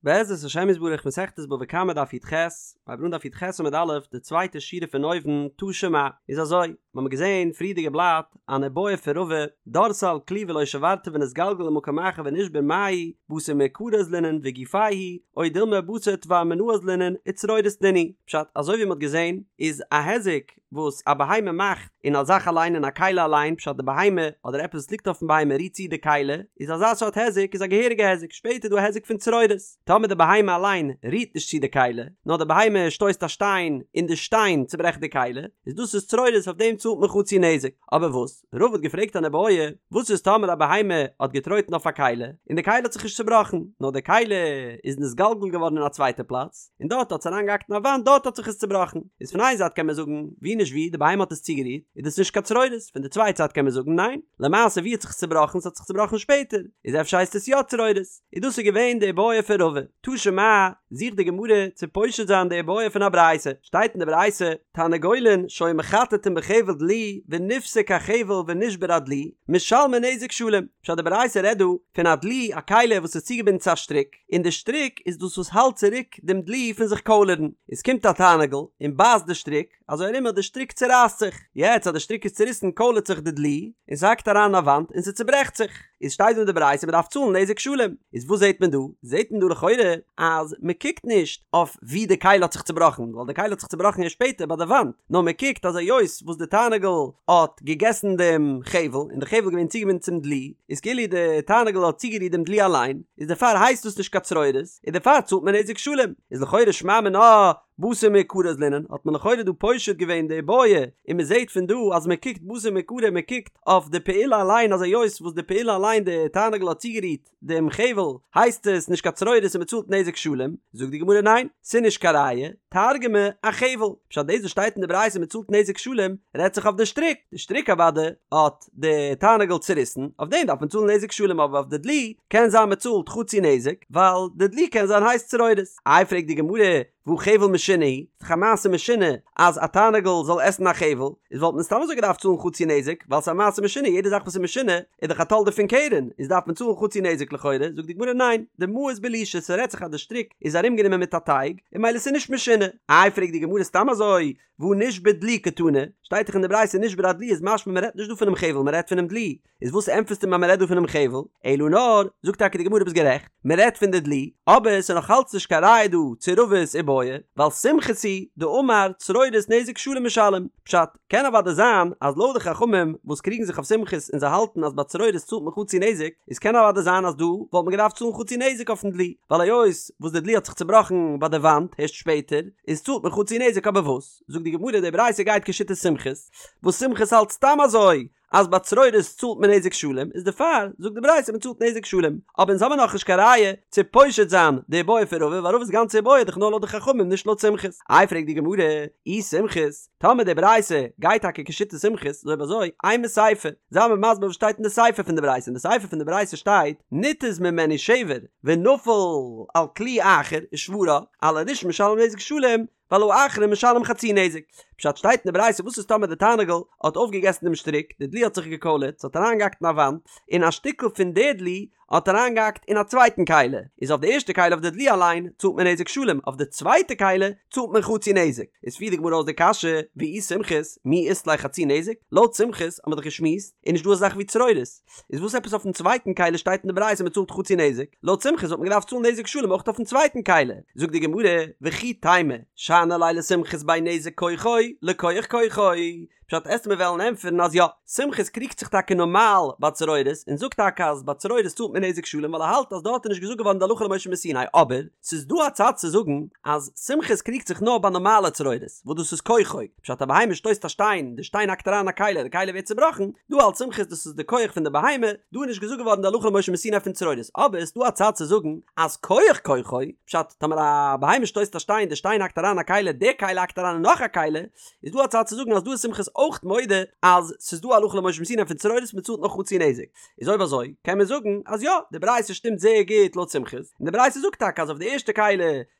בעזרת השם יתברך מסכת בבא קמא דף י"ח, מ'הייבט אן דף י"ח עמוד א', די צווייטע שורה פון אויבן, תא שמע, איז אזוי, מ'האמיר געזען פריערדיגע בלאט, אן איבעיא פון רבא, דרסה על כלי ולא שברתו ונתגלגל למקום אחר ונשבר מהו, בתר מעיקרא אזלינן וגופיה הוא, או דילמא בתר תבר מיניה אזלינן וצרורות נינהו, פשט, אזוי ווי מ'האט געזען, איז א היזק וואס א בהמה מאכט אין א זאך אליין אין א כלי אליין פשט די בהמה אדער עפעס וואס ליגט אויפן בהמה רירט צו די כלי איז אזא סארט היזק איז א געהעריגע היזק שפעטער איז דא א היזק פון צרורות טאמער די בהמה אליין רירט נישט צו די כלי נאר די בהמה שטויסט א שטיין און די שטיין צוברעכט די כלי איז דאס איז צרורות אויף דעם צאלט מען חצי נזק אבער וואס רבא האט געפרעגט אן איבעיא וואס איז טאמער א בהמה האט געטרויטן אויף א כלי און די כלי האט זיך נישט צובראכן נאר די כלי איז נתגלגל געווארן אין א צווייטע פלאץ און דארט האט עס אריינגעהאקט אין א וואנט דארט האט זיך עס צובראכן, איז פון איין זייט קען מען זאגן ווי נישט ווי די בהמה האט עס צוגערירט איז דאס נישט קיין צרורות, פון די צווייטע זייט קען מען זאגן ניין, למעשה ווי האט זיך עס צובראכן ס'האט זיך צובראכן שפעטער, איז אפשר הייסט עס יא צרורות, איז דאס איז געווען די איבעיא פון רבא, תא שמע, זוכט די גמרא צו פושט זיין די איבעיא פון א ברייתא, שטייט אין די ברייתא, תרנגולין שהיו מחטטין בחבל דלי ונפסק החבל ונשבר הדלי, משלמין נזק שלם, פשט די ברייתא רעדט דא פון א דלי א כלי וואס איז צוגעבינדן צו א שטריק, און די שטריק איז דאס וואס האלט צוריק דעם דלי פון זיך קוילערן, עס קומט א תרנגול און בייסט די שטריק, אזוי ארום אז די שטריק צורייסט זיך, יעצט אז די שטריק איז צוריסן קוילערט זיך די דלי, און ס'האקט אריין אין א וואנט און ס'צוברעכט זיך, איז שטייט דא אין די ברייתא מ'דארף צאלן נזק שלם, איז וואס זעט מען דא? זעט מען דא לכאורה אז מ'קוקט נישט אויף ווי די כלי האט זיך צובראכן, ווייל די כלי האט זיך צובראכן ערשט שפעטער ביי די וואנט, נאר מ'קוקט אז היות וואס די תרנגול האט געגעסן דעם חבל, און די חבל איז געווען צוגעבינדן צום דלי, איז כאילו די תרנגול האט צוגערירט דעם דלי אליין, איז דערפאר הייסט דאס נישט קיין צרורות, און דערפאר צאלט מען נזק שלם, איז לכאורה שמע מינה בתר מעיקרא אזלינן, האט מען לכאורה דא פושט געווען די איבעיא, און מען זעט פון דא אז מען קוקט בתר מעיקרא מען קוקט אויף די פעולה אליין אז היות וואס די פעולה אליין די תרנגול האט צוגערירט דעם חבל הייסט עס נישט קיין צרורות און מען צאלט נזק שלם, זאגט די גמרא ניין, ס'איז נישט קיין ראיה, תרגמה אחבל, פשט דאס וואס שטייט אין די ברייתא מען צאלט נזק שלם רעדט זיך אויף די שטריק, די שטריק אוודאי האט די תרנגול צוריסן, אויף דעם דארף מען צאלן נזק שלם אבער אויף די דלי קען זיין מען צאלט חצי נזק ווייל די דלי קען זיין הייסט צרורות. איי פרעגט די גמרא והא חבל משונה הוא, ס'דאך א מעשה משונה אז א תרנגול זאל עסן א חבל, איז וואלט מען סתם אזוי געדארפט צאלן חצי נזק ווייל ס'איז א מעשה משונה יעדע זאך וואס איז משונה איז דאך א תולדה פון קרן איז דארף מען צאלן חצי נזק לכאורה, זאגט די גמרא ניין, דמאוס בלישא ס'רעדט זיך אז די שטריק איז ארומגענומען מיט א טייג און ממילא ס'איז נישט משונה. איי פרעגט די גמרא סתם אזוי והא נשבר דלי קתני, שטייט דאך אין די ברייתא נשבר הדלי איז משמע מען רעדט נישט דא פונעם חבל מען רעדט פונעם דלי, איז וואס ענטפערסטו מיר אז מען רעדט דא פונעם חבל, אלא נאר, זאגט טאקע די גמרא ביסט גערעכט, מען רעדט פון די דלי, אבער ס'איז נאך אלץ נישט קיין ראיה דא צו רבא'ס איבעיא, ווייל סומכוס היא דאמר צרורות נזק שלם משלם, פשט, קען אוודאי זיין אז לויט די חכמים וואס קריגן זיך אויף סומכוס און זיי האלטן אז ביי צרורות צאלט מען חצי נזק, איז קען אוודאי זיין אז דא וואלט מען געדארפט צאלן חצי נזק אויפן דלי, ווייל היות וואס די דלי האט זיך צובראכן ביי די וואנט הערשט שפעטער, איז צאלט מען חצי נזק אבער וואס? זאגט די גמרא די ברייתא גייט כשיטת סומכוס, וואס סומכוס האלט סתם אזוי אז ביי צרורות צאלט מען נזק שלם, איז דערפאר זאגט די ברייתא מען צאלט נזק שלם, אבער אונז האמיר נאכנישט קיין ראיה צו פושט זיין די איבעיא פון רבא ווייל רבא'ס גאנצע איבעיא איז דאך נאר לויט די חכמים נישט לויט סומכוס, איי פרעגט די גמרא, אי סומכוס, טאמער די ברייתא גייט טאקע כשיטת סומכוס, איז אויב אזוי, אימא סיפא, זיי מיר מסביר וואס שטייט אין די סיפא פון די ברייתא, אין די סיפא פון די ברייתא שטייט, ניתז ממנו שבר ונפל על כלי אחר ושברה, על הראשון משלם נזק שלם, ועל האחרון משלם חצי נזק. פשט שטייט אין די ברייתא וואס איז טאמער די תרנגול האט אויפגעגעסן דעם שטריק, די דלי האט זיך געקוילערט, ס'האט אריינגעהאקט אין א וואנט, און א שטיקל פון די דלי האט אריינגעהאקט אין א צווייטן כלי, איז אויף די ערשטע כלי אויף די דלי אליין צאלט מען נזק שלם, אויף די צווייטע כלי צאלט מען חצי נזק. איז פירט די גמרא אויס די קשיא, ואי סומכוס, מי אית ליה חצי נזק? לויט סומכוס האט מען דאך געשמועסט, איז נישט דא אזא זאך ווי צרורות. איז וואס עפעס אויפן צווייטן כלי שטייט אין די ברייתא מען צאלט חצי נזק? לויט סומכוס וואלט מען געדארפט צאלן נזק שלם אויך אויפן צווייטן כלי. זאגט די גמרא, וכי תימא, שאני ליה לסומכוס בין נזק כוחו לכוח כוחו. פשט עסט מיר וועלן ענטפערן אז יא, סומכוס קריגט זיך טאקע נארמאל ביי צרורות און זאגט טאקע אז ביי צרורות צאלט מען נזק שלם ווייל ער האלט אז דארט איז נישט געזאגט געווארן די הלכה למשה מסיני אבער ס'איז דא א צד צו זאגן אז סומכוס קריגט זיך נאר ביי נארמאלע צרורות וואס דאס איז כוחו פשט א בהמה שטויסט א שטיין די שטיין האקט אריין א כלי די כלי ווערט צובראכן דא האלט סומכוס דאס איז די כח פון די בהמה דא איז נישט געזאגט געווארן די הלכה למשה מסיני פון צרורות אבער ס'איז דא א צד צו זאגן אז כח כוחו פשט טאמער א בהמה שטויסט א שטיין די שטיין האקט אריין א כלי די כלי האקט אריין אין נאך א כלי איז דא א צד צו זאגן אז דא איז סומכוס אויך מודה אז ס'איז דא הלכה למשה מסיני פון צרורות מ'צאלט נאר חצי נזק. איז אויב אזוי קען מען זאגן אז יא די ברייתא שטימט זייער גוט לויט סומכוס, און די ברייתא זאגט טאקע אז אויף די ערשטע כלי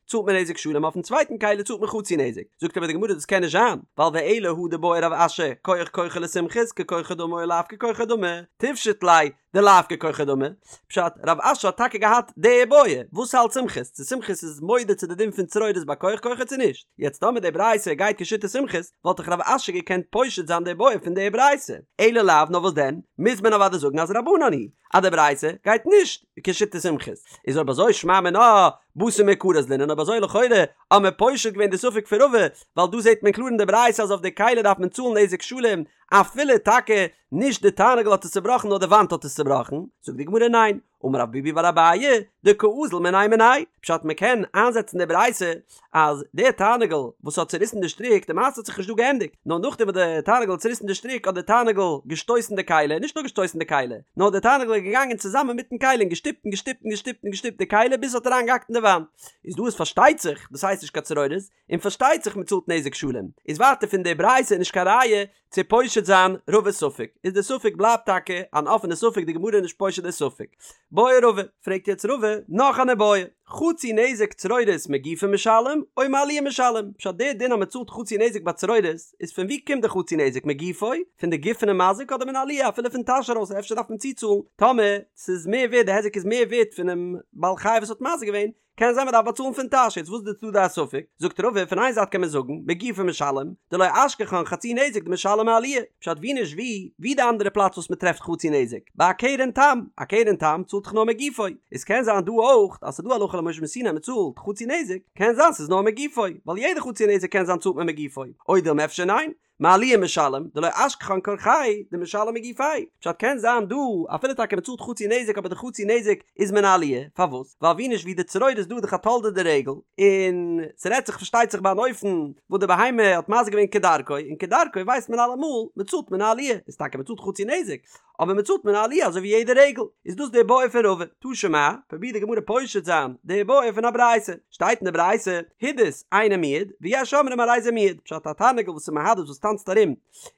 צאלט מען נזק שלם אויפן צווייטן כלי צאלט מען חצי נזק. זאגט אבער די גמרא דאס קען נישט זיין ווייל ואלא הא דבעי רב אשי כח כוחו לסומכוס ככוחו דמי או לאו ככוחו דמי תפשוט ליה. דלאו ככוחו דמי, פשט, רב אשי האט טאקע געהאט די איבעיא, וואס האלט סומכוס, צו סומכוס איז מודה צו די דין פון צרורות ביי כוח כוחו צו נישט, יעצט טאמער די ברייתא גייט כשיטת סומכוס, וואלט דאך רב אשי געקענט פושט זיין די איבעיא פון די ברייתא, אלא לאו, נאר וואס דען, מוז מען אוודאי זאגן אז רבנן היא, אז די ברייתא גייט נישט כשיטת סומכוס, איז אויב אזוי שמע מינה בתר מעיקרא אזלינן, אויב אזוי לכאורה האט מען פושט געווען די ספק פון רבא, ווייל דא זעט מען קלאר אין די ברייתא אז אויף די כלי דארף מען צאלן נזק שלם אפילו טאקע נישט די תרנגול האט עס צובראכן נאר די וואנט האט עס צובראכן, זאגט די גמרא ניין, אמר רב ביבי בר אביי, דקאזיל מיניה מיניה, פשט מען קען איינזעצן די ברייתא אז דער תרנגול וואס האט צוריסן די שטריק, די מעשה האט זיך נישט דא געענדיגט, נאר נאכדעם וואס די תרנגול האט צוריסן די שטריק האט די תרנגול געשטויסן די כלי, נישט נאר געשטויסן די כלי, נאר די תרנגול איז געגאנגען צוזאמען מיטן כלי און געשטופט און געשטופט און געשטופט און געשטופט די כלי ביז עס האט אריינגעהאקט אין די וואנט, איז דא איז פארשטייט זיך דאס הייסט נישט קיין צרורות, און פארשטייט זיך מען צאלט נזק שלם, איז ווייטער פון די ברייתא נישט קיין ראיה צו פושט זיין רבא'ס ספק, איז די ספק בלייבט טאקע אן אפענע ספק די גמרא איז נישט פושט די ספק. בעי רבא, פרעגט יעצט רבא נאך אן איבעיא, חצי נזק צרורות מגופו משלם או מעליה משלם, פשט די דין אז מען צאלט חצי נזק ביי צרורות איז פון ווי קומט די חצי נזק מגופו, פון די גוף פונעם מזיק אדער מן העליה אפילו פון טאש ארויס אפשר דארף מען צוצאלן טאמער ס'איז מער ווערט די היזק איז מער ווערט פונעם בעל חי וואס האט מזיק געווען, קען זיין מ'דארף באצאלן פון טאש, יעצט וואס איז דא די ספק? זאגט רבא, פון איין זייט קען מען זאגן, מגופו משלם, דלא אשכחן חצי נזק דמשלם מעליה, פשט ווי נישט ווי, ווי די אנדערע פלאץ וואס מ'טרעפט חצי נזק, ביי א קרן תם, א קרן תם צאלט דאך נאר מגופו, איז קען זיין דא אויך אז ס'דא הלכה למשה מסיני מ'צאלט חצי נזק, קען זיין ס'איז נאר מגופו, ווייל יעדע חצי נזק קען זיין צאלט מען מגופו, או דילמא אפשר ניין, מעליה משלם, דלא אשכחן כורחיה, דמשלם מגופיה. פשט קען זיין דא, אפילו טאקע מ'צאלט חצי נזק אבער די חצי נזק איז מן העליה, פארוואס? ווייל ווי נישט ווי די צרורות איז דא דאך א תולדה דרגל, און ס'רעדט זיך פארשטייט זיך ביי אן אופן וואס די בהמה האט מזיק געווען כדרכו, און כדרכו ווייסט מען אלעמאל מ'צאלט מן העליה, איז טאקע מ'צאלט חצי נזק, אבער מען צאלט מן העליה אזוי ווי יעדע רגל, איז דאס די בעיא פון רבא, תא שמע, פרובירט די גמרא פושט זיין די בעיא פון א ברייתא, שטייט אין די ברייתא, הידוס אינו מועד, ויש אומרים הרי זה מועד, פשט א תרנגול וואס איז מהדס וואס טאנצט ארום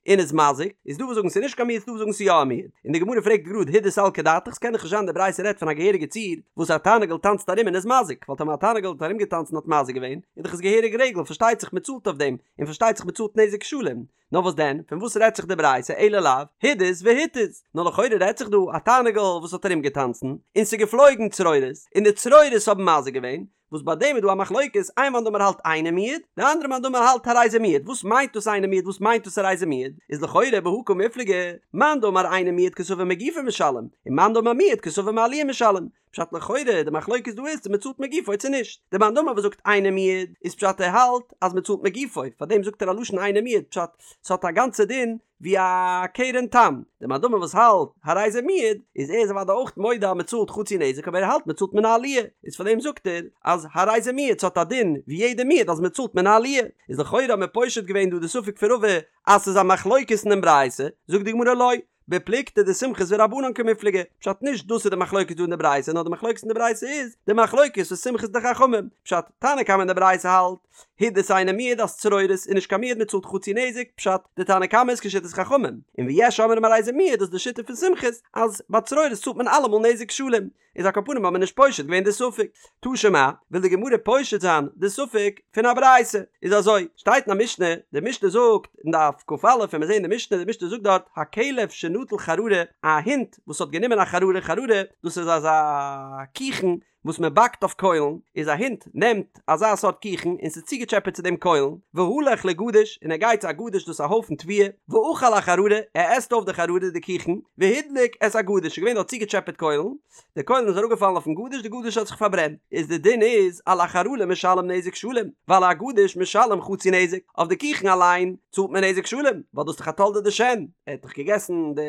און איז מזיק, איז דא וואס זאגן ס'איז נישט קיין מועד ס'דא וואס זאגן ס'איז יא א מועד, און די גמרא פרעגט גראד הידוס סלקא דעתך ס'קען דאך נישט זיין די ברייתא רעדט פון א געהעריגע ציור וואס א תרנגול טאנצט ארום און איז מזיק, ווייל טאמער א תרנגול האט ארומגעטאנצן און האט מזיק געווען, איז דאך עס געהעריג רגל, פארשטייט זיך מען צאלט אויף דעם, און פארשטייט זיך מען צאלט נזק שלם. נאר וואס דען, פון וואס רעדט זיך די ברייתא אלא לאו הידוס והתיז, נאר לכאורה רעדט זיך דא א תרנגול וואס האט ארום געטאנצן, און ס'איז געפלויגן צרורות, און די צרורות האבן מזיק געווען, וואס ביי דעם איז דא א מחלוקת, איין מאן דאמר האלט אינו מועד, די אנדערע מאן דאמר האלט הרי זה מועד, וואס מיינט דאס אינו מועד וואס מיינט דאס הרי זה מועד, איז לכאורה בהא קמיפלגי, מאן דאמר אינו מועד קסבר מגופו משלם, און מאן דאמר מועד קסבר מעליה משלם, פשט לכאורה די מחלוקת דא איז צו מען צאלט מגופו צו נישט, די מאן דאמר וואס זאגט אינו מועד איז פשט ער האלט אז מען צאלט מגופו פאר דעם זאגט ער א לשון אינו מועד פשט ס'האט א גאנצע דין ווי א קרן תם, די מאן דאמר וואס האלט הרי זה מועד איז ער איז אוודאי אויך מודה אז מען צאלט חצי נזק אבער ער האלט מען צאלט מן העליה איז פאר דעם זאגט ער אז הרי זה מועד ס'האט א דין ווי יעדע מועד אז מען צאלט מן העליה, איז לכאורה האט מען פושט געווען דא די ספק פון רבא אז ס'איז א מחלוקת אינעם ברייתא, זאגט די גמרא לא. בפלוגתא דסומכוס ורבנן קמיפלגי, פשט נישט דאס איז די מחלוקת דא אין די ברייתא נאר די מחלוקת אין די ברייתא איז די מחלוקת פון סומכוס די חכמים, פשט, תנא קמא אין די ברייתא האלט, הידוס אינו מועד אז צרורות איז נישט קיין מועד מען צאלט חצי נזק, פשט, די תנא קמא איז כשיטת חכמים, און ויש אומרים הרי זה מועד דאס איז די שיטה פון סומכוס אז ביי צרורות צאלט מען אלעמאל נזק שלם, איז על כל פנים האט מען נישט פושט געווען די ספק. תא שמע, וויל די גמרא פושט זיין די ספק פון א ברייתא. איז אזוי, שטייט אין א משנה, די משנה זאגט אין דף כ"א, ווען מיר זעהן די משנה, די משנה זאגט דארט, הכלב שנטל חררה, א הונט וואס האט גענומען א חררה, חררה, דאס איז אזא קיכן וואס מען באקט אויף קוילן, איז א הונט נעמט אזא סארט קיכן און ס'איז צוגעטשעפעט צו דעם קוילן, והלך לגדיש, און ער גייט צו א גדיש דאס איז א הויפן תבואה, ואכל החררה, ער עסט אויף די חררה די קיכן, והדליק את הגדיש, ס'איז געווען דארט צוגעטשעפעט קוילן, די קוילן איז אראפגעפאלן אויפן גדיש, די גדיש האט זיך פארברענט, איז די דין איז, על החררה משלם נזק שלם, ועל הגדיש משלם חצי נזק, אויף די קיכן אליין צאלט מען נזק שלם, ווייל דאס איז דאך א תולדה דשן, ער האט דאך געגעסן די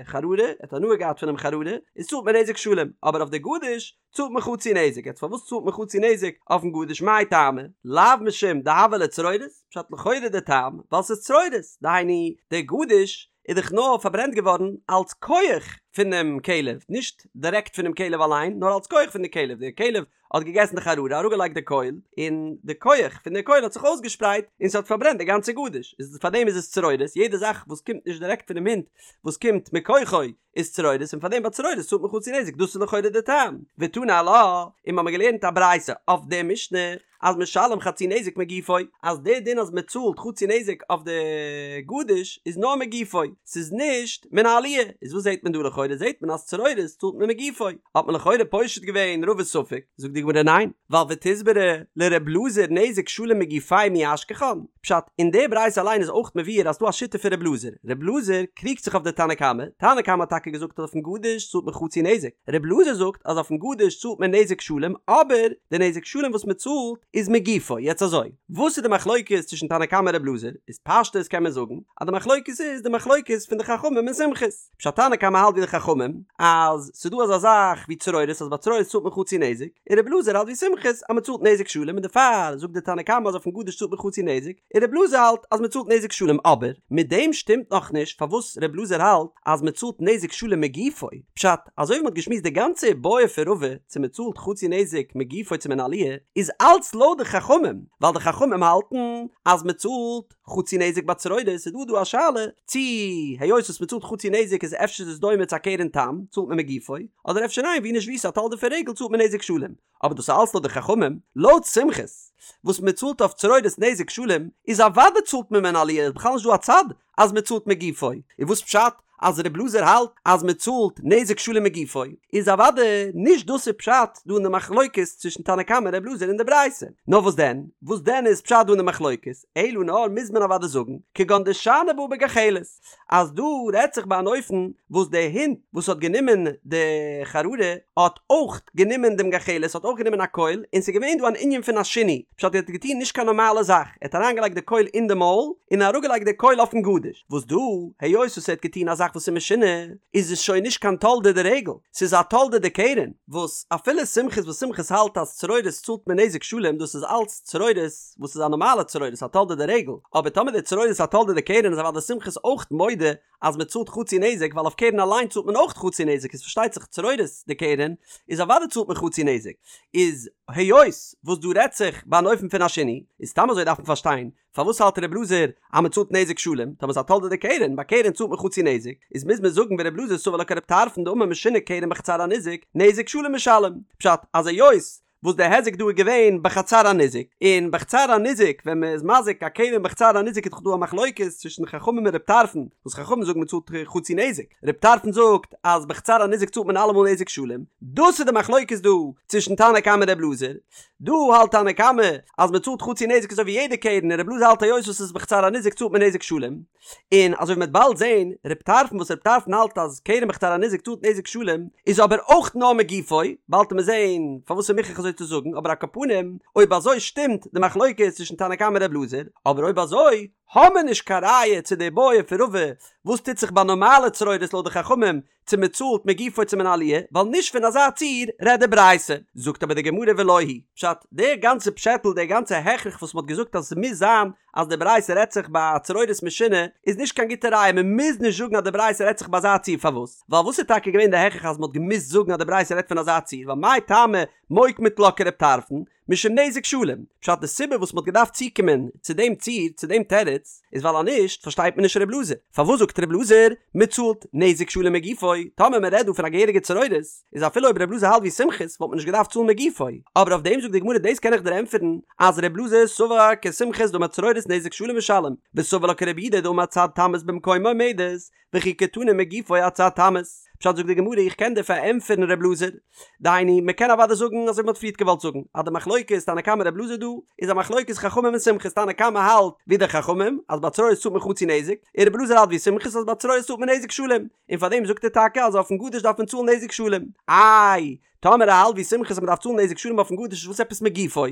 חררה, ער האט הנאה געהאט פונעם חררה, איז צאלט מען נזק שלם, אבער אויף די גדיש צאלט מען חצי נזק, יעצט פארוואס צאלט מען חצי נזק אויפן גדיש מאי טעמא? לאו משום דהוה ליה צרורות, פשט לכאורה די טעם ווייל ס'איז צרורות, דהיינו די גדיש איז דאך נאר פארברענט געווארן אלס כח פונעם כלב, נישט דירעקט פונעם כלב אליין, נאר אלס כח פון די כלב, די כלב האט געגעסן די חררה, אראפגעלייגט די קויל, און די כח פון די קויל האט זיך אויסגעשפרייט און ס'האט פארברענט די גאנצע גדיש, איז פארדעם איז עס צרורות, יעדע זאך וואס קומט נישט דירעקט פונעם הונט וואס קומט מכוחו איז צרורות און פארדעם ביי צרורות צאלט מען חצי נזק, דאס איז לכאורה די טעם, ותני עלה, און מ'האמיר געלערנט א ברייתא אויף די משנה אז משלם חצי נזק מגופו, אז די דין אז מ'צאלט חצי נזק אויף די גדיש איז נאר מגופו, ס'איז נישט מן העליה, איז וואס זעט מען דא לכאורה זעט מען אז צרורות צאלט מען מגופו, האט מען לכאורה פושט געווען רבא'ס ספק, זאגט די גמרא ניין, ווייל ותסברא לר' אלעזר נזק שלם מגופיה מי אשכחן, פשט, אין די ברייתא אליין איז אויך מבואר אז ס'דא א שיטה פון ר' אלעזר, ר' אלעזר קריגט זיך אויף די תנא קמא, תנא קמא האט טאקע געזאגט אז אויפן גדיש צאלט מען חצי נזק, ר' אלעזר זאגט אז אויפן גדיש צאלט מען נזק שלם אבער די נזק שלם וואס מען צאלט איז מגופו, יעצט אזוי, וואס איז די מחלוקת צווישן תנא קמא און ר' אלעזר, איז פשטות קען מען זאגן אז די מחלוקת איז די מחלוקת פון די חכמים און סומכוס. פשט תנא קמא האלט ווי די חכמים אז ס'דא אזא זאך ווי צרורות אז ביי צרורות צאלט מען חצי נזק, און רבי אלעזר האלט ווי סומכוס אז מ'צאלט נזק שלם און דערפאר זאגט די תנא קמא אז אויפן גדיש צאלט מען חצי נזק, און רבי אלעזר האלט אז מ'צאלט נזק שלם אבער מיט דעם שטימט נאך נישט פארוואס רבי אלעזר האלט אז מ'צאלט נזק שלם מגופו, פשט אזוי ווי מ'האט געשמועסט די גאנצע איבעיא פון רבא צו מ'צאלט חצי נזק מגופו צו מן העליה איז אלץ לויט די חכמים ווייל די חכמים האלטן אז מ'צאלט חצי נזק ביי צרורות איז דא דא א שאלה צי היות וואס מ'צאלט חצי נזק איז אפשר איז עס דומה צו א קרן תם צאלט מען מגופו אדער אפשר ניין ווי נישט ווי ס'איז א תולדה פון רגל צאלט מען נזק שלם אבער דאס איז אלץ לויט די חכמים לויט סומכוס וואס מ'צאלט אויף צרורות נזק שלם איז אוודאי צאלט מען מן העליה איז בכלל נישט דא א צד אז מ'צאלט מגופו און וואס פשט אז ר' אלעזר האלט אז מען צאלט נזק שלם מגופו, איז אוודאי נישט דאס איז פשט דא אין די מחלוקת צווישן תנא קמא און ר' אלעזר אין די ברייתא. נאר וואס דען? וואס דען איז פשט דא אין די מחלוקת? אלא נאר מוז מען אוודאי זאגן, כגון דשני בה בגחלת, אז דא רעדט זיך ביי אן אופן וואס די הונט וואס האט גענומען די חררה האט אויך גענומען דעם גחלת, האט אויך גענומען א קויל, און ס'איז געווען דא אן ענין פון א שינוי, פשט ער האט געטון נישט קיין נארמאלע זאך, ער האט אריינגעלייגט די קויל אין די מויל, און אראפגעלייגט די קויל אויפן גדיש, וואס דא, היות וואס ער האט געטון א זאך וואס איז משונה, איז עס שוין נישט קיין תולדה דרגל, ס'איז א תולדה דקרן, וואס אפילו סומכוס וואס סומכוס האלט אז צרורות צאלט מען נזק שלם דאס איז אלץ צרורות וואס איז א נארמאלע צרורות א תולדה דרגל, אבער טאמער די צרורות איז א תולדה דקרן איז אוודאי סומכוס אויך מודה אז מען צאלט חצי נזק ווייל אויף קרן אליין צאלט מען אויך חצי נזק איז פארשטייט זיך צרורות דקרן איז אוודאי צאלט מען חצי נזק איז היות וואס דא רעדט זיך ביי אן אופן פון א שינוי איז סתם אזוי דארף מען פארשטיין פארוואס האלט ר' אלעזר אז מען צאלט נזק שלם טאמער ס'איז א תולדה דקרן ביי קרן צאלט מען חצי נזק איז מוז מען זאגן ור' אלעזר סבר לה כר' טרפון דאמר משונה קרן בחצר הניזק נזק שלם משלם פשט אז היות וואס די היזק דא איז געווען בחצר הניזק, און בחצר הניזק ווען מען איז מזיק א קרן בחצר הניזק איז דאך דא א מחלוקת צווישן חכמים און ר' טרפון, וואס חכמים זאגן מען צאלט חצי נזק, ר' טרפון זאגט אז בחצר הניזק צאלט מען אלעמאל נזק שלם, דאס איז די מחלוקת דא צווישן תנא קמא און ר' אלעזר, דא האלט תנא קמא אז מען צאלט חצי נזק אזוי ווי יעדע קרן און ר' אלעזר האלט היות וואס עס איז בחצר הניזק צאלט מען נזק שלם. און אזוי ווי מ'וועט באלד זעהן, ר' טרפון וואס ר' טרפון האלט אז קרן בחצר הניזק צאלט נזק שלם, איז אבער אויך נאר מגופו, באלד וועט מען זעהן פארוואס ס'איז מוכרח אזוי צו זאגן, אבער על כל פנים, אויב אזוי שטימט די מחלוקת צווישן תנא קמא און ר' אלעזר, אבער אויב אזוי האמער נישט קיין ראיה צו די בעיא פון רבא וואס טוט זיך ביי נארמאלע צרורות לויט די חכמים, צו מען צאלט מגופו צו מן העליה, ווייל נישט פון אזא ציור רעדט די ברייתא. זאגט אבער די גמרא ולא היא פשט, דער גאנצע פשעטל, דער גאנצע הכרח וואס מען האט געזאגט אז עס מוז זיין אז די ברייתא רעדט זיך ביי צרורות משונה, איז נישט קיין גוטע ראיה, מען מוז נישט זאגן אז די ברייתא רעדט זיך ביי אזא ציור, פארוואס? ווייל וואס איז טאקע געווען די הכרח אז מען האט געמוזט זאגן אז די ברייתא רעדט פון אזא ציור, ווייל מאי טעמא מוקמת לה כרב טרפון, משום נזק שלם, פשט די סיבה וואס מ'האט געדארפט צוקומען צו דעם ציור, צו דעם תירוץ, איז ווייל אז נישט פארשטייט מען נישט ר' אלעזר, פארוואס זאגט ר' אלעזר מ'צאלט נזק שלם מגופו, טאמער מ'רעדט דא פון א געהעריגע צרורות, איז אפילו אויב ר' אלעזר האלט ווי סומכוס וואלט מען נישט געדארפט צאלן מגופו, אבער אויף דעם זאגט די גמרא דאס קען איך דיר ענטפערן אז ר' אלעזר סבר כסומכוס דאמר צרורות נזק שלם משלם, וסבר לה כרבי יהודה דאמר צד תמות במקומה עומדת, וכי קתני מגופו אצד תמות. פשט זאגט די גמרא איך קען דיר פארענטפערן ר' אלעזר, דהיינו מען קען אוודאי זאגן אזוי ווי מען האט פריערט געוואלט זאגן אז די מחלוקת תנא קמא ר' אלעזר דא איז א מחלוקת חכמים און סומכוס תנא קמא האלט ווי די חכמים אז ביי צרורות צאלט מען חצי נזק און ר' אלעזר האלט ווי סומכוס אז ביי צרורות צאלט מען נזק שלם און פארדעם זאגט ער טאקע אז אויפן גדיש דארף מען צאלן נזק שלם איי טאמער ער האלט ווי סומכוס אז מ'דארף צאלן נזק שלם אויפן גדיש איז וואס עפעס מגופו?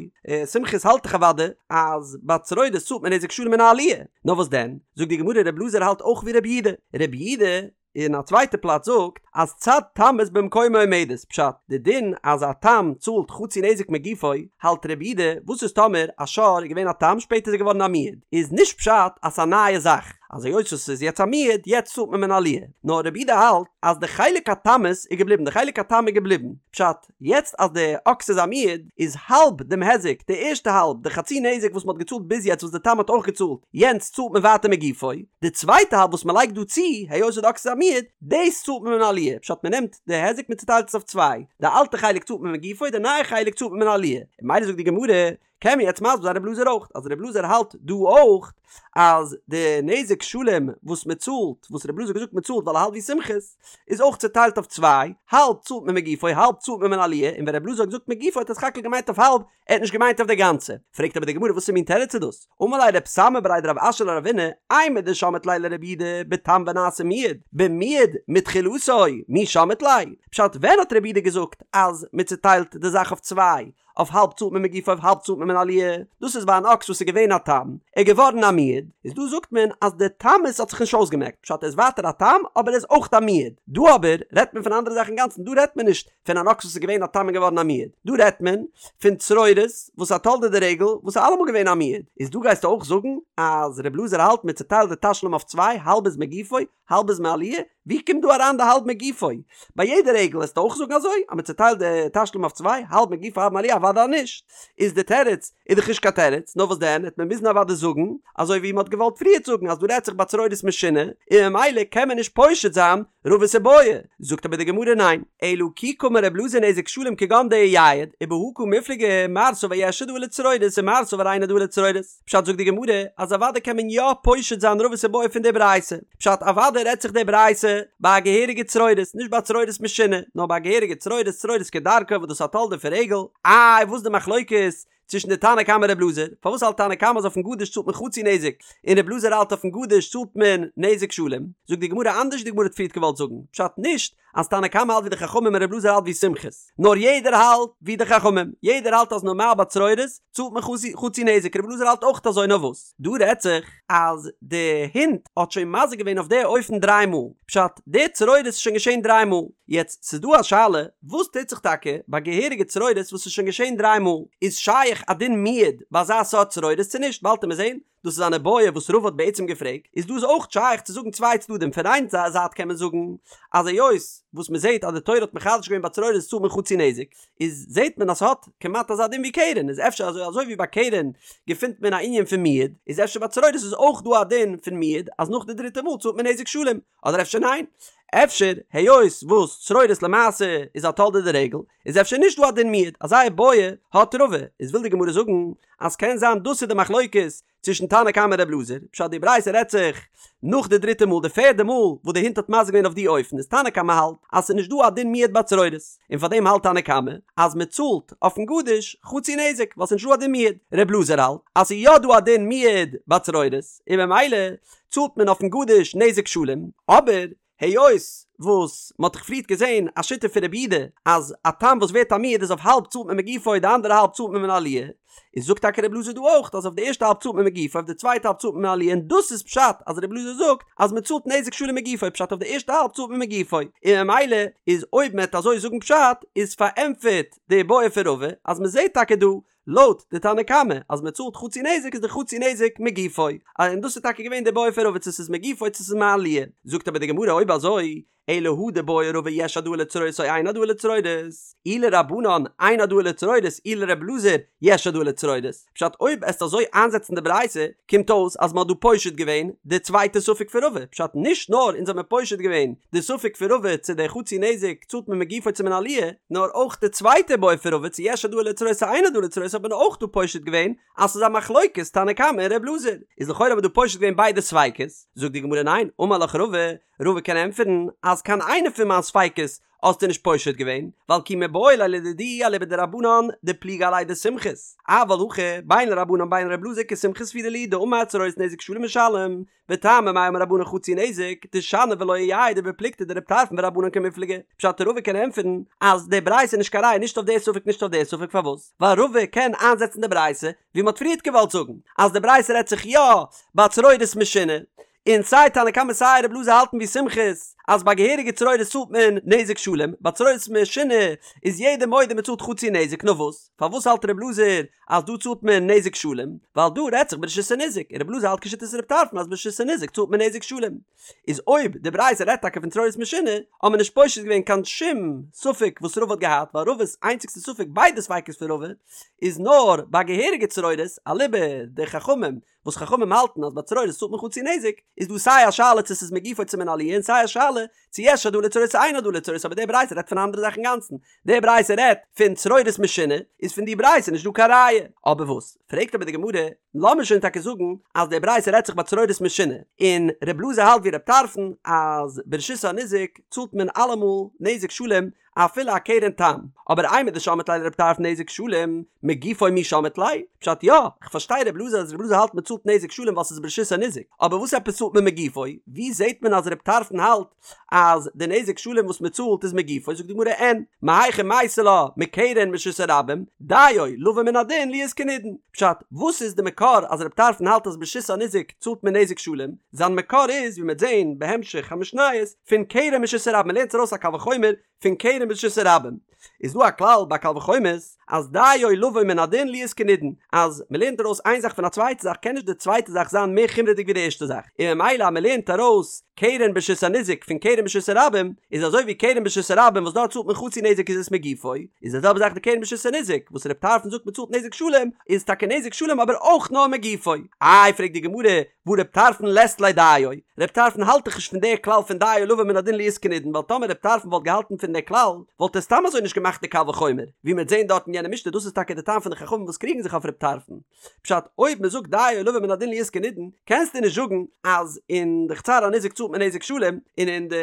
סומכוס האלט דאך אוודאי אז ביי צרורות צאלט מען נזק שלם מן העליה. נאר וואס דען? זאגט די גמרא ר' אלעזר האלט אויך ווי ר' יהודה. ר' יהודה אין א צווייטע פלאץ זאגט אז צד תמות במקומה עומדת, פשט, די דין אז א תם צאלט חצי נזק מגופו, האלט ר' יהודה, וואס איז טאמער א שור איז געווען א תם שפעטער איז ער געווארן א מועד, איז נישט פשט אז ס'איז א נייע זאך. אז היות עס איז יעצט א מועד, יעצט צאלט מען מן העליה. נאר רבי יהודה האלט אז די חלק התמות איז געבליבן, די חלק התם איז געבליבן. פשט, יעצט אז די אקס איז א מועד, איז האלב דעם היזק, די ערשטע האלב, די חצי נזק וואס מען האט געצאלט ביז יעצט וואס די תם האט אויך געצאלט, יענץ צאלט מען ווייטער מגופו. די צווייטע האלב וואס מען לייגט דא צו, היות די אקס איז א מועד, דאס צאלט מען מן העליה. פשט, מען נעמט די היזק מען צוטיילט עס אויף צוויי, די אלטע חלק צאלט מען מגופו, די נייע חלק צאלט מען מן העליה. ממילא זאגט די גמרא, קען מען יעצט מסביר זיין רב אלעזר אויך, אז רב אלעזר האלט דא אויך אז די נזק שלם וואס מען צאלט, וואס רב אלעזר האט געזאגט מען צאלט ווייל ער האלט ווי סומכוס, איז אויך צוטיילט אויף צוויי, האלב צאלט מען מגופו האלב צאלט מען מן העליה, און ווען רב אלעזר האט געזאגט מגופו האט ער סך הכל געמיינט אויף האלב, ער האט נישט געמיינט אויף די גאנצע. פרעגט אבער די גמרא וואסער מין תירוץ איז דאס? אמר ליה רב סמא בריה דרב אשי לרבינא, אימר דשמעת ליה לרבי יהודה בתם ונעשה מועד, במועד מתחילתו, מי שמעת ליה? פשט ווען האט רבי יהודה געזאגט אז מען צוטיילט די זאך אויף צוויי, אויף האלב צאלט מען מגופו אויף האלב צאלט מען מן העליה, דאס איז ביי אן אקס וואס איז געווען א תם, ער איז געווארן א מועד, איז דא זאגט מען אז די תמות האט זיך נישט אויסגעמעקט, פשט ער איז ווייטער א תם אבער ער איז אויך א מועד, דא אבער רעדט מען פון א אנדערע זאך אינגאנצן, דא רעדט מען נישט פון אן אקס וואס איז געווען א תם און געווארן א מועד, דא רעדט מען פון צרורות וואס א תולדה דרגל וואס איז אלעמאל געווען א מועד, איז דא גייסטו אויך זאגן אז ר' אלעזר האלט מען צוטיילט די תשלום אויף צוויי, האלב איז מגופו, האלב איז מעליה? ווי קומט דא אריין די האלב מגופו? ביי יעדע רגל וועסטו אויך זאגן אזוי? אז מען צוטיילט די תשלום אויף צוויי, האלב מגופו האלב מעליה? אוודאי נישט! איז די תירוץ איז דאך נישט קיין תירוץ, נאר וואס דען העט מען מוזן אוודאי זאגן אזוי ווי מען האט געוואלט פריערט זאגן אז דא רעדט זיך ביי צרורות משונה און ממילא קען מען נישט פושט זיין רבא'ס איבעיא. זאגט אבער די גמרא ניין, אלא כי קאמר רב אלעזר נזק שלם כגון דאייעד, ובהא קמיפלגי מר סבר יש העדאה לצרורות ומר סבר אין העדאה לצרורות. פשט זאגט די גמרא אז אוודאי קען מען יא פושט זיין רבא'ס איבעיא פון די ברייתא, פשט אוודאי רעדט זיך די ברייתא ביי א געהעריגע צרורות, נישט ביי צרורות משונה, נאר ביי א געהעריגע צרורות, צרורות כדרכו וואס דאס איז א תולדה פון רגל, איי וואס די מחלוקת צווישן די תנא קמא רב אלעזר, פארוואס האלט תנא קמא אז אויפן גדיש צאלט מען חצי נזק, און רב אלעזר האלט אויפן גדיש צאלט מען נזק שלם, זאגט די גמרא אנדערש ווי די גמרא האט פריערט געוואלט זאגן, פשט נישט אז תנא קמא האלט ווי די חכמים און רב אלעזר האלט ווי סומכוס, נאר יעדער האלט ווי די חכמים, יעדער האלט אז נארמאל ביי צרורות צאלט מען חצי נזק, רב אלעזר האלט אויך אזוי נאר וואס דא רעדט זיך אז די הונט האט שוין מזיק געווען אויף די אופן דריי מאל, פשט די צרורות איז שוין געשען דריי מאל, יעצט ס'איז דא א שאלה וואס טוט זיך טאקע ביי געהעריגע צרורות וואס איז שוין געשען דריי מאל, איז שייך א דין מועד ביי אזא סארט צרורות צו נישט, באלד עמיר זען דאס איז אן איבעיא וואס רבא האט בעצם געפרעגט, איז דא איז אויך שייך צו זאגן צוויי צדדים, פון איין זייט קען מען זאגן אז היות וואס מען זעט אז די תורה האט מחדש געווען ביי צרורות צאלט מען חצי נזק, איז זעט מען אז ס'האט כמעט אזא דין ווי קרן, איז אפשר אזוי אזוי ווי ביי קרן געפינט מען א ענין פון מועד, איז אפשר ביי צרורות איז אויך דא א דין פון מועד אז נאך די דריטע מאל צאלט מען נזק שלם, אדער אפשר ניין? אפשר היות וואס צרורות למעשה איז א תולדה דרגל, איז אפשר נישט דא א דין מועד, אזא איבעיא האט רבא, איז וויל די גמרא זאגן אז קען זיין דאס איז די מחלוקת צווישן תנא קמא און רב אלעזר, פשט די ברייתא רעדט זיך נאך די דריטע מאל די פערדע מאל וואס די הונט האט מזיק געווען אויף די אופן איז תנא קמא האלט אז ס'איז נישט דא א דין מועד ביי צרורות און פאר דעם האלט תנא קמא אז מען צאלט אויפן גדיש חצי נזק ווייל ס'איז נישט דא א דין מועד, רב אלעזר האלט אז ס'איז יא דא א דין מועד ביי צרורות און ממילא צאלט מען אויפן גדיש נזק שלם, אבער היות וואס מען האט דאך פריערט געזען א שיטה פון רבי יהודה אז א תם וואס ווערט א מועד איז אויף האלב צאלט מען מגופו די אנדערע האלב צאלט מען מן העליה, איז זאגט טאקע רבי אלעזר דא אויך אז אויף די ערשטע האלב צאלט מען מגופו אויף די צווייטע האלב צאלט מען מן העליה און דאס איז פשט אז רבי אלעזר זאגט אז מען צאלט נזק שלם מגופו פשט אויף די ערשטע האלב צאלט מען מגופו און ממילא איז אויב מען וועט אזוי זאגן פשט איז פארענטפערט די בעיא פון רבא אז מען זעט טאקע דא לויט די תנא קמא אז מען צאלט חצי נזק איז די חצי נזק מגופו, און דאס איז טאקע געווען די בעיא פון רבא צו ס'איז מגופו צו ס'איז מעליה, זאגט אבער די גמרא אויב אזוי אלא הא דבעי רבא יש העדאה לצרורות או אין העדאה לצרורות, אי לרבנן אין העדאה לצרורות אי לר' אלעזר יש העדאה לצרורות, פשט אויב עסט אזוי איינזעצן די ברייתא קומט אויס אז מען האט דא פושט געווען די צווייטע ספק פון רבא, פשט נישט נאר אונז האמיר פושט געווען די ספק פון רבא צו די חצי נזק צאלט מען מגופו צו מן העליה, נאר אויך די צווייטע בעיא פון רבא צו יש העדאה לצרורות צו אין העדאה לצרורות האט מען אויך דא פושט געווען אז ס'איז א מחלוקת תנא קמא און ר' אלעזר, איז לכאורה האט מען דא פושט געווען ביידע ספיקות, זאגט די גמרא ניין, אמר לך רבא, רבא קען ענטפערן אז קיין איינע פון מיין ספיקות האסטו נישט פושט געווען, ווייל כי מיבעי ליה לדידי אליבא דרבנן דפליגי עליה דסומכוס, אבל הכא בין לרבנן בין לר' אלעזר כסומכוס סבירא להו דאמר צרורות נזק שלם משלם, וטעמא מאי אמור רבנן חצי נזק, דשני ולא אייעד ובפלוגתא דרבי טרפון ורבנן קמיפלגי. פשט רבא קען ענטפערן אז די ברייתא איז נישט קיין ראיה נישט אויף די ספק נישט אויף די ספק פארוואס? ווייל רבא קען איינזעצן די ברייתא ווי מ'האט פריערט געוואלט זאגן אז די ברייתא רעדט זיך יא ביי צרורות משונה און סיי תנא קמא סיי רב אלעזר האלטן ווי סומכוס. אז ביי געהעריגע צרורות צאלט מען נזק שלם, ביי צרורות משונה איז יעדער מודה מען צאלט חצי נזק, נאר וואס? פארוואס האלט ר' אלעזר אז דא צאלט מען נזק שלם? ווייל דא רעדט זיך ברשות הניזק, און ר' אלעזר האלט כשיטת ר' טרפון אז ברשות הניזק צאלט מען נזק שלם. איז אויב די ברייתא רעדט טאקע פון צרורות משונה, האט מען נישט פושט געווען קיין שום ספק וואס רבא האט געהאט, ווייל רבא'ס איינציגסטע ספק, ביידע ספיקות פון רבא, איז נאר ביי געהעריגע צרורות, אליבא דחכמים, וואס חכמים האלטן אז ביי צרורות צאלט מען חצי נזק, איז דא סיי א שאלה צו ס'איז מגופו צו מן העליה און סיי א שאלה צו יש העדאה לצרורות צו אין העדאה לצרורות אבער די ברייתא רעדט פון א אנדערע זאך אינגאנצן, די ברייתא רעדט פון צרורות משונה, איז פון די ברייתא נישט דא קיין ראיה. אבער וואס? פרעגט אבער די גמרא, לאמיר שוין טאקע זאגן אז די ברייתא רעדט זיך ביי צרורות משונה, און ר' אלעזר האלט ווי ר' טרפון אז ברשות הניזק צאלט מען אלעמאל נזק שלם אפילו א קרן תם, אבער אימר דשמעת ליה לר' טרפון נזק שלם, מגופו מי שמעת ליה? פשט יא, כ'פארשטיי ר' אלעזר אז ר' אלעזר האלט מ'צאלט נזק שלם ווייל ס'איז ברשות הניזק, אבער וואס עפעס צאלט מען מגופו? ווי זעהט מען אז ר' טרפון האלט אז די נזק שלם וואס מ'צאלט איז מגופו? זאגט די גמרא אין, מהיכא מייתי לה מקרן ברשות הרבים, דיו לבא מן הדין להיות כנידון. פשט, וואס איז די מקור אז ר' טרפון האלט אז ברשות הניזק צאלט מען נזק שלם? זיין מקור איז ווי מ'וועט זעהן בהמשך המשניות, פון קרן ברשות הרבים, מ'לערנט ארויס א קל וחומר פון קרן ברשות הרבים איז דא א כלל ביי קל וחומר'ס אז דיו לבא מן הדין להיות כנידון אז מ'לערנט ארויס איין זאך פון א צווייטע זאך קען נישט די צווייטע זאך זיין מער חומרה'דיג ווי די ערשטע זאך און ממילא אז מ'לערנט ארויס קרן ברשות הניזק פון קרן ברשות הרבים איז אזוי ווי קרן ברשות הרבים וואס דארט צאלט מען חצי נזק איז עס מגופו איז די זעלבע זאך די קרן ברשות הניזק וואס ר' טרפון זאגט מ'צאלט נזק שלם איז טאקע נזק שלם אבער אויך נאר מגופו איי פרעגט די גמרא והא ר' טרפון לית ליה דיו, ר' טרפון האלט דאך נישט פון די כלל פון דיו לבא מן הדין להיות כנידון ווייל טאמער ר' טרפון וואלט געהאלטן פון די כלל וואלט ער סתם אזוי נישט געמאכט די קל וחומר ווי מ'וועט זעהן דארט אין יענע משנה דאס איז טאקע די טעם פון די חכמים וואס קריגן זיך אויף ר' טרפון פשט אויב מ'זאגט דיו לבא מן הדין להיות כנידון קענסטו נישט זאגן אז אין די חצר הניזק צאלט מען נזק שלם און אין די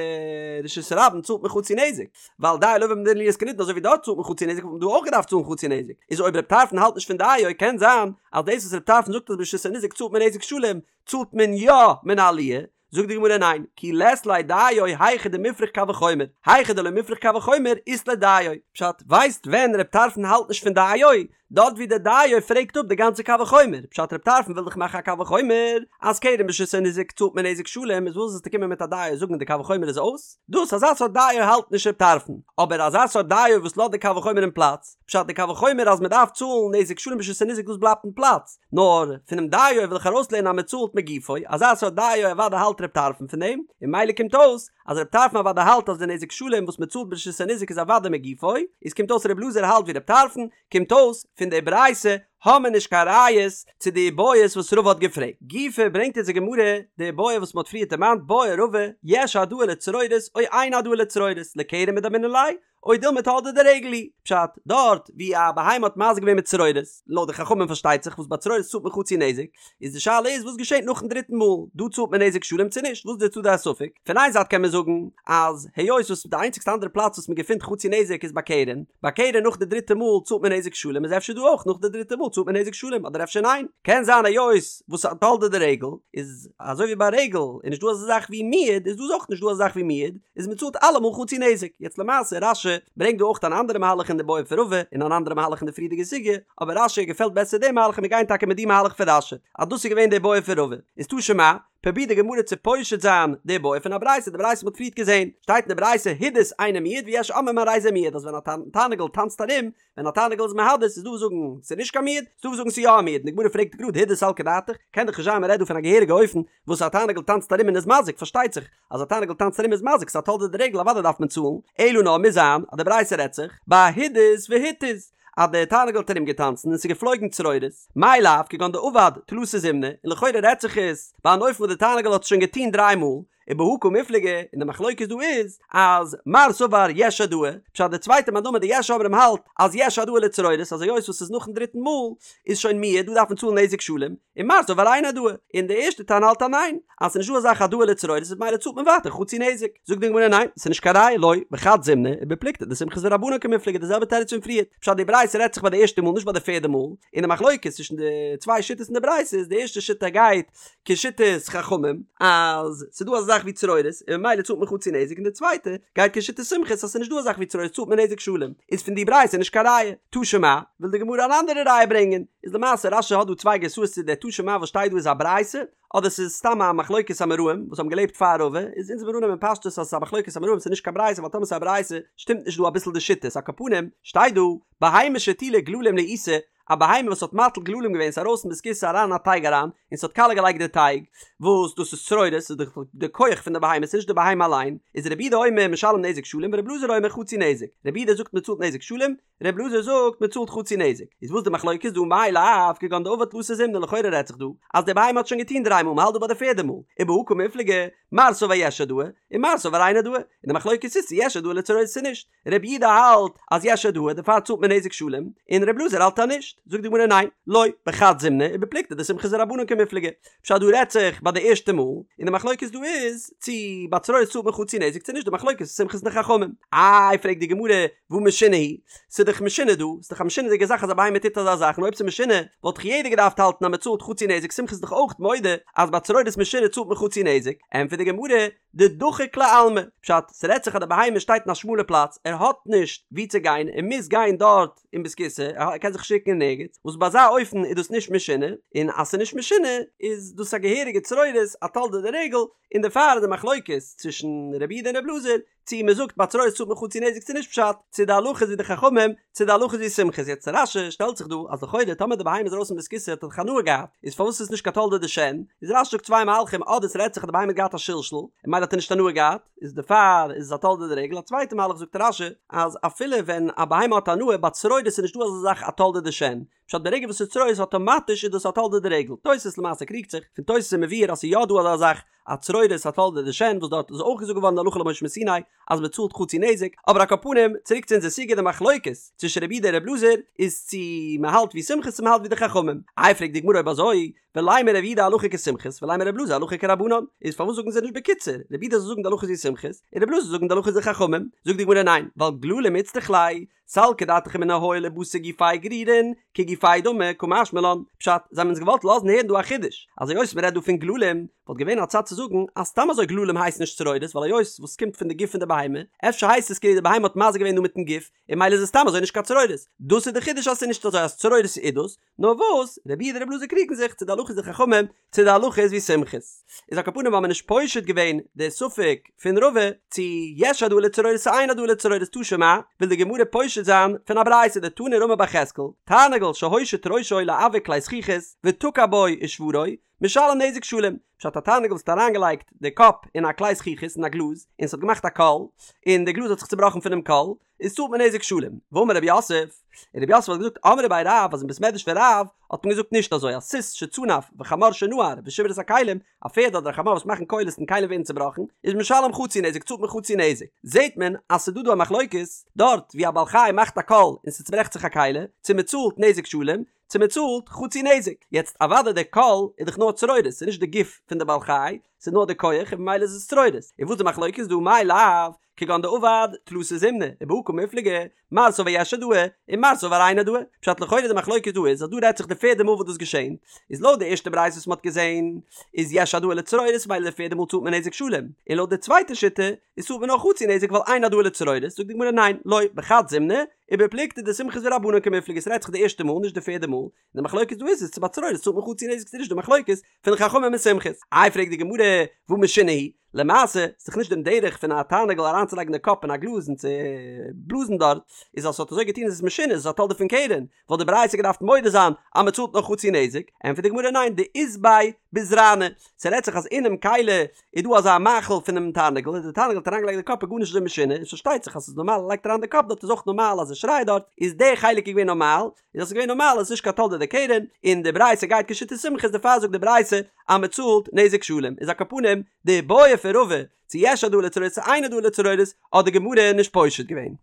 רשות הרבים צאלט מען חצי נזק ווייל דיו לבא מן הדין להיות כנידון אזוי ווי דארט צאלט מען חצי נזק וואלט מען דא אויך געדארפט צאלן חצי נזק איז אויב ר' טרפון האלט נישט פון דיו קען זיין אז דאס וואס ר' טרפון זאגט אז ברשות הניזק צאלט מען נזק שלם צאלט מען יא מן העליה, זאגט די גמרא ניין, כי לית ליה דיו היכא דמופרך קל וחומר, היכא דלא מופרך קל וחומר אית ליה דיו, פשט, ווייסט ווען ר' טרפון האלט נישט פון דיו? דארט ווי די דיו פרעגט אפ די גאנצע קל וחומר, פשט ר' טרפון וויל דאך מאכן א קל וחומר אז קרן ברשות הניזק צאלט מען נזק שלם איז וואס זאלסטו קומען מיט א דיו זאגן די קל וחומר איז אויס? דאס אזא סארט דיו האלט נישט ר' טרפון, אבער אזא סארט דיו וואס לאזט די קל וחומר אין פלאץ, פשט די קל וחומר אז מען דארף צאלן נזק שלם ברשות הניזק דאס בלייבט אין פלאץ, נאר פונעם דיו וויל איך ארויסלערנען אז מען צאלט מגופו, אזא סארט דיו אוודאי האלט ר' טרפון פון דעם, און ממילא קומט אויס אז ר' טרפון אוודאי האלט אז די נזק שלם וואס מען צאלט ברשות הניזק איז אוודאי מגופו, איז קומט אויס ר' אלעזר האלט ווי ר' טרפון, קומט אויס פון די ברייתא האמער נישט קיין ראיות צו די איבעיות וואס רבא האט געפרעגט. גופא ברענגט אונז די גמרא די איבעיא וואס מען האט פריער דערמאנט בעי רבא יש העדאה לצרורות או אין העדאה לצרורות לקרן מדמינן ליה או דילמא תולדה דרגל היא, פשט, דארט ווי א בהמה האט מזיק געווען מיט צרורות, לויט די חכמים פארשטייט זיך וואס ביי צרורות צאלט מען חצי נזק, איז די שאלה איז וואס געשעט נאכן דריטן מאל, דא צאלט מען נזק שלם צו נישט, וואס איז די צדדי הספק? פון איין זייט קען מען זאגן אז היות וואס די איינציגסטע אנדערע פלאץ וואס מען געפינט חצי נזק איז ביי קרן, ביי קרן נאך די דריטע מאל צאלט מען נזק שלם איז אפשר דא אויך נאך די דריטע מאל צאלט מען נזק שלם אדער אפשר ניין, קען זיין היות וואס א תולדה דרגל איז אזוי ווי ביי רגל איז נישט דא אזא זאך ווי מועד איז דא אויך נישט דא אזא זאך ווי מועד, איז מען צאלט אלעמאל חצי נזק. יעצט למעשה רש"י ברענגט דא אויך אן אנדערע מהלך אין די בעיא פון רבא און אן אנדערע מהלך אין די פריערדיגע סוגיא, אבער רש"י געפעלט בעסער די מהלך און מיר גייען טאקע מיט די מהלך פון רש"י אז דאס איז געווען די בעיא פון רבא. איז תא שמע, פרובירט די גמרא צו פושט זיין די בעיא פון א ברייתא, די ברייתא מ'האט פריערט געזען, שטייט אין די ברייתא הידוס אינו מועד ויש אומרים הרי זה מועד אז ווען א תרנגול טאנצט ארום, ווען א תרנגול איז מהדס איז דא וואס זאגן ס'איז נישט קיין מועד, ס'איז דא וואס זאגן ס'איז יא א מועד, און די גמרא פרעגט גראד הידוס סלקא דעתך, קען דאך נישט זיין מ'רעדט דא פון א געהעריגע אופן וואס א תרנגול טאנצט ארום און איז מזיק, פארשטייט זיך אז א תרנגול טאנצט ארום איז מזיק, ס'איז א תולדה דרגל אוודאי דארף מען צאלן, אלא נאר מוז זיין אז די ברייתא רעדט זיך ביי הידוס והתיז אז די תרנגול האט ארום געטאנצן און ס'איז געפלויגן צרורות, מאי לאו כגון דעבד תלתא זימני, און לכאורה רעדט זיך עס ביי אן אופן וואס די תרנגול האט עס שוין געטון דריי מאל, ובהא קמיפלגי, און די מחלוקת דא איז אז מר סבר יש העדאה, פשט די צווייטע מאן דאמר די יש אומרים האלט אז יש העדאה לצרורות אז היות וואס ס'איז נאכן דריטן מאל איז שוין מועד דא דארף מען צאלן נזק שלם, און מר סבר אין העדאה, און די ערשטע תנא האלט אז ניין, אז ס'איז נישט דא אזא זאך העדאה לצרורות איז ממילא צאלט מען ווייטער חצי נזק. זאגט די גמרא ניין, ס'איז נישט קיין ראיה לא, בחד זימנא, ובפלוגתא דסומכוס ורבנן קמיפלגי די זעלבע תירוץ פון פריערט, פשט די ברייתא רעדט זיך ביי די ערשטע מאל נישט ביי די פערדע מאל, און די מחלוקת צווישן די צוויי שיטות אין די ברייתא איז די ערשטע שיטה גייט כשיטת חכמים אז ס'איז דא אזא זאך זאך ווי צרורות און ממילא צאלט מען חצי נזק און די צווייטע גייט כשיטת סומכוס אז ס'איז נישט דא א זאך ווי צרורות צאלט מען נזק שלם איז פון די ברייתא נישט קיין ראיה. תא שמע, וויל די גמרא אן אנדערע ראיה ברענגען, איז למעשה רש"י האט דא צוויי גרסאות צו דער תא שמע וואס שטייט דא איז א ברייתא אדער ס'איז סתם א מחלוקת אמוראים וואס האבן געלעבט פאר רבא, איז אונז וועלן אננעמען פשטות אז ס'איז א מחלוקת אמוראים ס'איז נישט קיין ברייתא ווייל טאמער ס'איז א ברייתא שטימט נישט דא אביסל די שיטות על כל פנים שטייט דא בהמה שהטילה גללים לעיסה א בהמה וואס האט מטיל גללים געווען ס'איז ארויס פון בית הכסא אריין אין א טייג אריין און ס'האט קאלע געלייגט די טייג וואס דאס איז צרורות ס'איז דאך די כח פון די בהמה ס'איז נישט די בהמה אליין איז רבי יהודה אומר משלם נזק שלם ורבי אלעזר אומר חצי נזק רבי יהודה זאגט מ'צאלט נזק שלם רבי אלעזר זאגט מ'צאלט חצי נזק איז וואס די מחלוקת דא מאי לאו כגון דעבד תלתא זימני לכאורה רעדט זיך דא אז די בהמה האט שוין געטון דריי מאל מ'האלט דא ביי די פערדע מאל ובהא קמיפלגי מר סבר יש העדאה און מר סבר אין העדאה און די מחלוקת איז צו יש העדאה לצרורות צו נישט רבי יהודה האלט אז יש העדאה דערפאר צאלט מען נזק שלם, און רבי אלעזר האלט אז נישט, זאגט די גמרא ניין, לא, בחד זימנא ובפלוגתא דסומכוס ורבנן קמיפלגי, פשט דא רעדט זיך ביי די ערשטע מאל, און די מחלוקת דא איז צו ביי צרורות צאלט מען חצי נזק צו נישט, די מחלוקת איז סומכוס און די חכמים. איי פרעגט די גמרא, והא משונה היא, ס'איז דאך משונה דא, ס'איז דאך א משונה'דיגע זאך אז א בהמה טוט אזא זאך, און אויב ס'איז משונה וואלט דאך יעדער געדארפט האלטן אז מ'צאלט חצי נזק, סומכוס איז דאך אויך מודה אז ביי צרורות משונה צאלט מען חצי נזק, ענטפערט די גמרא, דדחיק ליה עלמא, פשט, ס'רעדט זיך אז די בהמה שטייט אין א שמאלע פלאץ, ער האט נישט וואו צו גיין, ער מוז גיין דארט אין בית הכסא, ער קען זיך נישט רוקן אין ערגעץ, וואס ביי אזא אופן איז דאס נישט משונה, און אז ס'איז נישט משונה איז דאס א געהעריגע צרורות, א תולדה דרגל, און דערפאר איז די מחלוקת צווישן רבי יהודה און רבי אלעזר, צו מ'זאגט ביי צרורות צאלט מען חצי נזק צו נישט פשט, צו די הלכה איז ווי די חכמים, צו די הלכה איז ווי סומכוס, יעצט רש"י שטעלט זיך דא אז לכאורה טאמער די בהמה איז ארויס פון בית הכסא האט ער דאך הנאה געהאט, איז פארוואס איז עס נישט קיין תולדה דשן? איז רש"י זאגט צוויי מהלכים אדער ס'רעדט זיך אז די בהמה האט געהאט א שלשול און ממילא האט ער נישט הנאה געהאט איז דערפאר איז עס א תולדה דרגל, א צווייטע מהלך זאגט רש"י אז אפילו ווען א בהמה האט הנאה ביי צרורות איז נישטא אזא זאך א תולדה דשן, פשט ברגע וואס ס'איז צרורות אטאמאטיש איז דאס א תולדה דרגל, תוס' למעשה קריגט זיך, פון תוס' איז מבואר אז ס'איז יא דא אזא זאך א צרורות א תולדה דשן וואס דארט איז אויך געזאגט געווארן די הלכה למשה מסיני אז מען צאלט חצי נזק, אבער על כל פנים צוריק צו אונזער סוגיא די מחלוקת צווישן רבי יהודה און רבי אלעזר איז צו מען האלט ווי סומכוס צו מען האלט ווי די חכמים, איי פרעגט די גמרא אויב אזוי ולימא רבי יהודה הלכה כסומכוס ולימא רבי אלעזר הלכה כרבנן, איז פארוואס זאגן זיי נישט בקיצור רבי יהודה זאל זאגן די הלכה איז ווי סומכוס און רבי אלעזר זאל זאגן די הלכה איז ווי חכמים, זאגט די גמרא ניין ווייל גללים איצטריך ליה סלקא דעתך אמינא הואיל ובתר גופיה גרירין, כגופיה דמי, קא משמע לן, פשט, זיי האבן אונז געוואלט לאזן הערן דא א חידוש, אז היות מ'רעדט דא פון גללים, וואלט געווען א צד צו זאגן אז סתם אזוי גללים הייסן נישט צרורות ווייל היות וואס קומט פון די גוף פון די בהמה, אפשר הייסט עס כאילו די בהמה האט מזיק געווען דא מיטן גוף, און ממילא איז עס סתם אזוי נישט קיין צרורות. דאס איז די חידוש אז ס'איז נישט אזוי אז צרורות איז דאס, נאר וואס, רבי יהודה און רבי אלעזר קריגן זיך צו די הלכה איז די חכמים צו די הלכה איז ווי סומכוס. איז על כל פנים האבן מיר נישט פושט געווען די ספק פון רבא צו יש העדאה לצרורות צו אין העדאה לצרורות תא שמע, וויל די גמרא פושט זיין פון א ברייתא דתני רמי בר יחזקאל, תרנגול שהושיט ראשו לעוה כלי זכוכית ותקע בו ושברו, משלם נזק שלם, פשט א תרנגול וואס האט אריינגעלייגט די קאפ אין א כלי זכוכית אין א גלאז און ס'האט געמאכט א קול און די גלאז האט זיך צובראכן פונעם קול, איז צאלט מען נזק שלם. ואמר רב יוסף, און רב יוסף האט געזאגט אמרי בי רב אז אין בית מדרש פון רב האט מען געזאגט נישט אזוי אז סוס שצנף וחמור שנער ושיבר את הכלים, א פערד אדער א חמור וואס מאכן קולות און כלים ווערן צובראכן, איז משלם חצי נזק צאלט מען חצי נזק. זעט מען אז ס'איז דא דא א מחלוקת, דארט ווי א בעל חי מאכט א קול און ס'צוברעכט זיך א כלי, צו מ'צאלט נזק שלם, צו מ'צאלט חצי נזק. יעצט אוודאי דער קול איז דאך נאר צרורות, ס'איז נישט די גוף פון די בעל חי, ס'איז נאר די כח און ממילא איז עס צרורות. און וואס איז די מחלוקת דא מאי לאו כגון דעבד תלתא זימני ובהא קמיפלגי מר סבר יש העדאה און מר סבר אין העדאה פשט לכאורה די מחלוקת דא איז אז דא רעדט זיך די פערדע מאל וואס דאס געשען איז לויט די ערשטע ברייתא וואס מ'האט געזען איז יש העדאה לצרורות ממילא די פערדע מאל צאלט מען נזק שלם און לויט די צווייטע שיטה איז צאלט מען נאר חצי נזק ווייל אין העדאה לצרורות זאגט די גמרא ניין לא בחד זימנא ובפלוגתא דסומכוס ורבנן קמיפלגי ס'רעדט זיך די ערשטע מאל נישט די פערדע מאל די מחלוקת דא איז איז צו ביי צרורות צאלט מען חצי נזק צו נישט די מחלוקת פון חכמים און סומכוס איי פרעגט די גמרא והא משונה היא למעשה איז דאך נישט דעם דרך פון א תרנגול אריינצולייגן די קאפ אין א גלאז און צו בלאזן דארט איז אז ס'האט אזוי געטון איז עס משונה איז עס א תולדה פון קרן וואלט די ברייתא געדארפט מודה זיין אז מ'צאלט נאר חצי נזק ענטפערט די גמרא ניין דאית ביה בזרנא ס'רעדט זיך אז אינעם כלי איז דא אזא מאכל פונעם תרנגול און די תרנגול האט אריינגעלייגט די קאפ איז גארנישט אזוי משונה און ס'פארשטייט זיך אז ס'איז נארמאל ער לייגט אריין די קאפ דארט איז אויך נארמאל אז ער שרייט דארט איז די חלק איז געווען נארמאל איז דאס געווען נארמאל איז נישט קיין תולדה דקרן און די ברייתא גייט כשיטת סומכוס דערפאר זאגט די ברייתא אז מען צאלט נזק שלם איז על כל פנים די בעיא פון רבא צו יש העדאה לצרורות צו אין העדאה לצרורות האט די גמרא נישט פושט געווען.